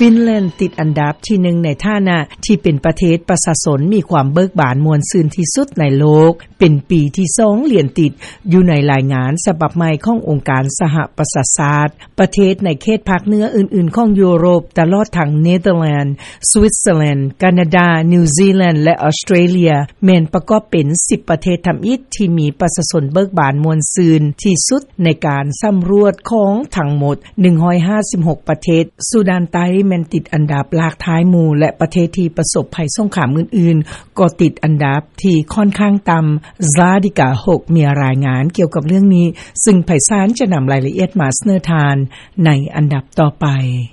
ຟິນແລນຕິດອັນດັບທີໜຶ່ງ ໃນຖານະທີ່ເປັນປະເທດປະຊາຊົນມີຄວາມເບີກບານມ່ວນຊື່ນທີ່ສຸດໃນໂລກ ເປັນປີທີສອງລຽນຕິດ ຢູ່ໃນລາຍງານສະບັບໃໝ່ຂອງອົງການສະຫະປະຊາຊາດ. ປະເທດໃນເຂດພາກເໜືອອື່ນໆຂອງຢູໂຣບ ຕະຫຼອດທັງເນເທີແລນ, ສະວິດເຊີແລນ, ການາດາ, ນິວຊີແລນ ແລະ ອອສເຕຣເລຍ ແມ່ນປະກອບເປັນສິບປະເທດທຳອິດທີ່ມີປະຊາຊົນເບີກບານມ່ວນຊື່ນທີ່ສຸດ ໃນການສຳຫຼວດຂອງທັງໝົດໜຶ່ງຮ້ອຍຫ້າສິບຫົກປະເທດ. ຊູດານໃຕ້ແມ່ນຕິດອັນດັບຫຼາກທ້າຍໝູ່ ແລະ ປະເທດທີ່ປະສົບໄພສົງຄາມອື່ນໆ ກໍຕິດອັນດັບທີ່ຂ້ອນຂ້າງຕ່ຳ. ຊາດີກາ ຫົກ ມີລາຍງານກ່ຽວກັບເລື່ອງນີ້ ຊຶ່ງໄພສານຈະນຳລາຍລະອຽດມາສະເໜີທ່ານໃນອັນດັບຕໍ່ໄປ.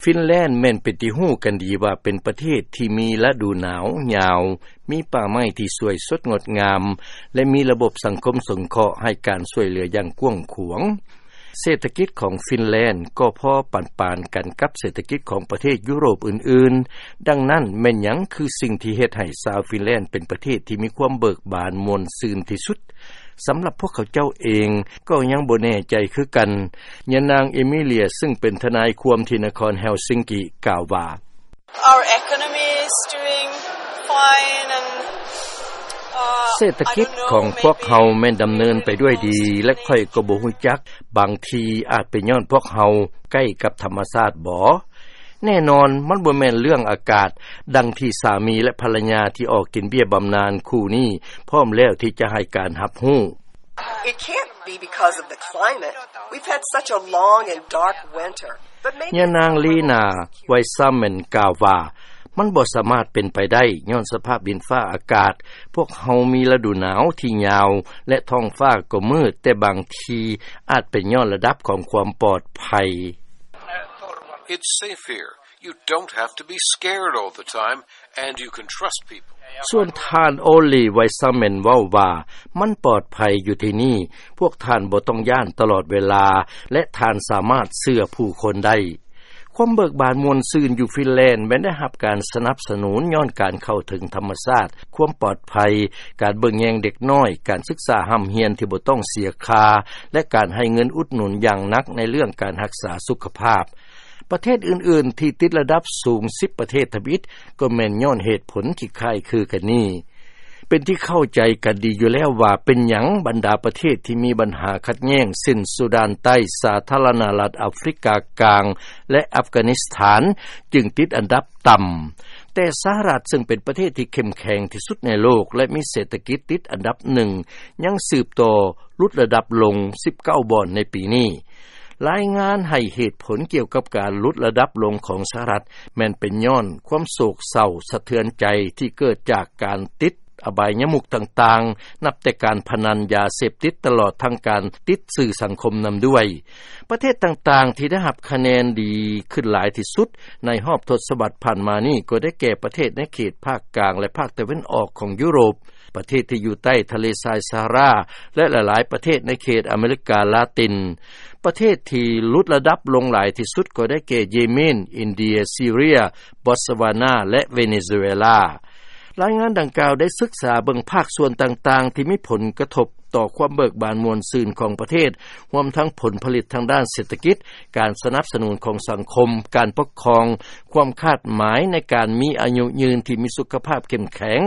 ຟິນແລນແມ່ນເປັນທີ່ຮູ້ກັນດີວ່າເປັນປະເທດທີ່ມີລະດູໜາວຍາວ, ມີປ່າໄມ້ທີ່ສວຍສົດງົດງາມ ແລະ ມີລະບົບສັງຄົມສົງເຄາະໃຫ້ການຊ່ວຍເຫຼືອຢ່າງກວ້າງຂວາງ. ເສດຖະກິດຂອງຟິນແລນກໍພໍປານໆກັນກັບເສດຖະກິດຂອງປະເທດຢູໂຣບອື່ນໆ. ດັ່ງນັ້ນ, ແມ່ນຫຍັງຄືສິ່ງທີ່ເຮັດໃຫ້ຊາວຟິນແລນເປັນປະເທດທີ່ມີຄວາມເບີກບານມ່ວນຊື່ນທີ່ສຸດ? ສຳລັບພວກເຂົາເຈົ້າເອງກໍຍັງບໍ່ແນ່ໃຈຄືກັນ. ຍານາງເອມິເລຍ ຊຶ່ງເປັນທະນາຍຄວາມທີ່ນະຄອນເຮລຊິງກີ ກ່າວວ່າ, Our economy is doing fine and, uh, ເສດຖະກິດຂອງພວກເຮົາແມ່ນດຳເນີນໄປດ້ວຍດີ ແລະ ຂ້ອຍກໍບໍ່ຮູ້ຈັກ, ບາງທີອາດເປັນຍ້ອນພວກເຮົາໃກ້ກັບທຳມະຊາດບໍ? ແນ່ນອນ, ມັນບໍ່ແມ່ນເລື່ອງອາກາດ, ດັ່ງທີ່ສາມີ ແລະ ພັນລະຍາທີ່ອອກກິນເບ້ຍບຳນານຄູ່ນີ້ ພ້ອມແລ້ວທີ່ຈະໃຫ້ການຮັບຮູ້. It can't be because of the climate. We've had such a long and dark winter. But maybe ຍານາງລີນາ ໄວຊາແມນ ກ່າວວ່າ, ມັນບໍ່ສາມາດເປັນໄປໄດ້ ຍ້ອນສະພາບດິນຟ້າອາກາດ. ພວກເຮົາມີລະດູໜາວທີ່ຍາວ ແລະ ທ້ອງຟ້າກໍມືດ, ແຕ່ບາງທີອາດເປັນຍ້ອນລະດັບຂອງຄວາມປອດໄພ. It's safe here. You don't have to be scared all the time, and you can trust people. ສ່ວນທ່ານ ໂອລີ ໄວຊາແມນ ເວົ້າວ່າ, ມັນປອດໄພຢູ່ທີ່ນີ້, ພວກທ່ານບໍ່ຕ້ອງຢ້ານຕະຫຼອດເວລາ ແລະ ທ່ານສາມາດເຊື່ອຜູ້ຄົນໄດ້. ຄວາມເບີກບານມ່ວນຊື່ນຢູ່ຟິນແລນແມ່ນໄດ້ຮັບການສະໜັບສະໜູນຍ້ອນການເຂົ້າເຖິງທຳມະຊາດ, ຄວາມປອດໄພ, ການເບິ່ງແຍງເດັກນ້ອຍ, ການສຶກສາຮ່ຳຮຽນທີ່ບໍ່ຕ້ອງເສຍຄ່າ ແລະ ການໃຫ້ເງິນອຸດໜູນຢ່າງໜັກໃນເລື່ອງການຮັກສາສຸຂະພາບ. ປະເທດອື່ນໆທີ່ຕິດລະດັບສູງສິບປະເທດທຳອິດ ກໍແມ່ນຍ້ອນເຫດຜົນທີ່ຄ້າຍຄືກັນນີ້. ເປັນທີ່ເຂົ້າໃຈກັນດີຢູ່ແລ້ວວ່າເປັນຫຍັງບັນດາປະເທດທີ່ມີບັນຫາຂັດແຍ່ງ ເຊັ່ນ ຊູດານໃຕ້, ສາທາລະນະລັດອາຟຣິກາກາງ ແລະ ອັຟການິສຖານ ຈຶ່ງຕິດອັນດັບຕ່ຳ. ແຕ່ສະຫະລັດ ເຊິ່ງເປັນປະເທດທີ່ເຂັ້ມແຂງທີ່ສຸດໃນໂລກ ແລະ ມີເສດຖະກິດຕິດອັນດັບໜຶ່ງ ຍັງສືບຕໍ່ຫຼຸດລະດັບລົງສິບເກົ້າບ່ອນໃນປີນີ້. ລາຍງານໃຫ້ເຫດຜົນກ່ຽວກັບການຫຼຸດລະດັບລົງຂອງສະຫະລັດ ແມ່ນເປັນຍ້ອນຄວາມໂສກເສົ້າສະເທືອນໃຈທີ່ເກີດຈາກການຕິດອະບາຍຍະມຸກຕ່າງໆ, ນັບແຕ່ການພະນັນ, ຢາເສບຕິດ, ຕະຫຼອດທັງການຕິດສື່ສັງຄົມນຳດ້ວຍ. ປະເທດຕ່າງໆທີ່ໄດ້ຮັບຄະແນນດີຂຶ້ນຫຼາຍທີ່ສຸດໃນຮອບທົດສະວັດຜ່ານມານີ້ ກໍໄດ້ແກ່ປະເທດໃນເຂດພາກກາງ ແລະ ພາກຕາເວັນອອກຂອງຢູໂຣບ. ປະເທດທີ່ຢູ່ໃຕ້ທະເລຊາຍຊາຮາຣາ ແລະ ຫຼາຍໆປະເທດໃນເຂດອາເມລິກາລາຕິນ. ປະເທດທີ່ຫຼຸດລະດັບລົງຫຼາຍທີ່ສຸດກໍໄດ້ແກ່ເຢເມນ, ອິນເດຍ, ຊີເຣຍ, ບອດສະວານາ ແລະ ເວເນຊູເອລາ. ລາຍງານດັ່ງກ່າວໄດ້ສຶກສາເບິ່ງພາກສ່ວນຕ່າງໆທີ່ມີຜົນກະທົບຕໍ່ຄວາມເບີກບານມ່ວນຊື່ນຂອງປະເທດ, ຮວມທັງຜົນຜະລິດທາງດ້ານເສດຖະກິດ, ການສະໜັບສະໜູນຂອງສັງຄົມ, ການປົກຄອງ, ຄວາມຄາດໝາຍໃນການມີອາຍຸຍືນທີ່ມີສຸຂະພາບເຂັ້ມແຂງ,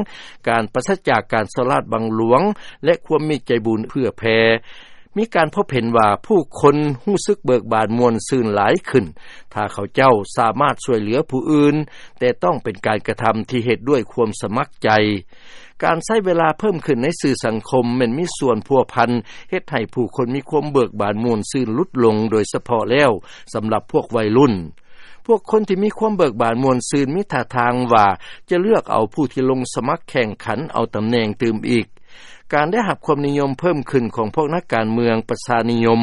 ການປາສະຈາກການສໍ້ລາດບັງຫຼວງ ແລະ ຄວາມມີໃຈບຸນເພື່ອແຜ່. ມີການພົບເຫັນວ່າຜູ້ຄົນຮູ້ສຶກເບີກບານມ່ວນຊື່ນຫຼາຍຂຶ້ນ ຖ້າເຂົາເຈົ້າສາມາດຊ່ວຍເຫຼືອຜູ້ອື່ນ, ແຕ່ຕ້ອງເປັນການກະທຳທີ່ເຮັດດ້ວຍຄວາມສະໝັກໃຈ. ການໃຊ້ເວລາເພີ່ມຂຶ້ນໃນສື່ສັງຄົມແມ່ນມີສ່ວນພົວພັນເຮັດໃຫ້ຜູ້ຄົນມີຄວາມເບີກບານມ່ວນຊື່ນຫຼຸດລົງ, ໂດຍສະເພາະແລ້ວສຳລັບພວກໄວລຸ້ນ. ພວກຄົນທີ່ມີຄວາມເບີກບານມ່ວນຊື່ນມີທ່າທາງວ່າຈະເລືອກເອົາຜູ້ທີ່ລົງສະໝັກແຂ່ງຂັນເອົາຕຳແໜ່ງຕື່ມອີກ. ການໄດ້ຮັບຄວາມນິຍົມເພີ່ມຂຶ້ນຂອງພວກນັກການເມືອງປະຊານິຍົມ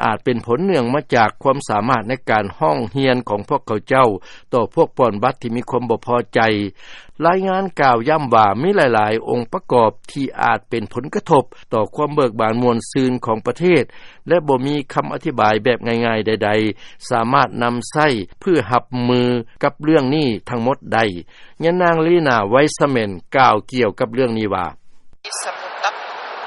ອາດເປັນຜົນເນື່ອງມາຈາກຄວາມສາມາດໃນການຮ້ອງຮຽນຂອງພວກເຂົາເຈົ້າຕໍ່ພວກປ່ອນບັດທີ່ມີຄວາມບໍ່ພໍໃຈ. ລາຍງານກ່າວຢ້ຳວ່າມີຫຼາຍໆອົງປະກອບທີ່ອາດເປັນຜົນກະທົບຕໍ່ຄວາມເບີກບານມ່ວນຊື່ນຂອງປະເທດ ແລະ ບໍ່ມີຄຳອະທິບາຍແບບງ່າຍໆໃດໆ ສາມາດນຳໃຊ້ເພື່ອຮັບມືກັບເລື່ອງນີ້ທັງໝົດໄດ້. ຍານາງ ລີນາ ໄວຊະແມນ ກ່າວກ່ຽວກັບເລື່ອງນີ້ວ່າ,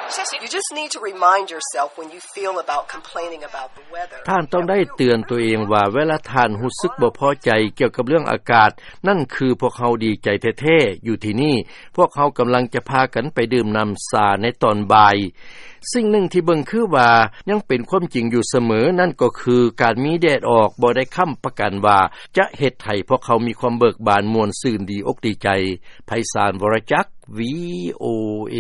You just need to remind yourself when you feel about complaining about the weather. ທ່ານຕ້ອງໄດ້ເຕືອນໂຕເອງວ່າ ເວລາທ່ານຮູ້ສຶກບໍ່ພໍໃຈກ່ຽວກັບເລື່ອງອາກາດ, ນັ້ນຄືພວກເຮົາດີໃຈແທ້ໆ. ຢູ່ທີ່ນີ້, ພວກເຮົາກຳລັງຈະພາກັນໄປດື່ມນ້ຳຊາໃນຕອນບ່າຍ. ສິ່ງໜຶ່ງທີ່ເບິ່ງຄືວ່າຍັງເປັນຄວາມຈິງຢູ່ສະເໝີ, ນັ້ນກໍຄືການມີແດດອອກບໍ່ໄດ້ຄ້ຳປະກັນວ່າຈະເຮັດໃຫ້ພວກເຮົາມີຄວາມເບີກບານ, ມ່ວນຊື່ນ, ດີອົກດີໃຈ. ໄພສານ ວໍລະຈັກ ວີໂອເອ.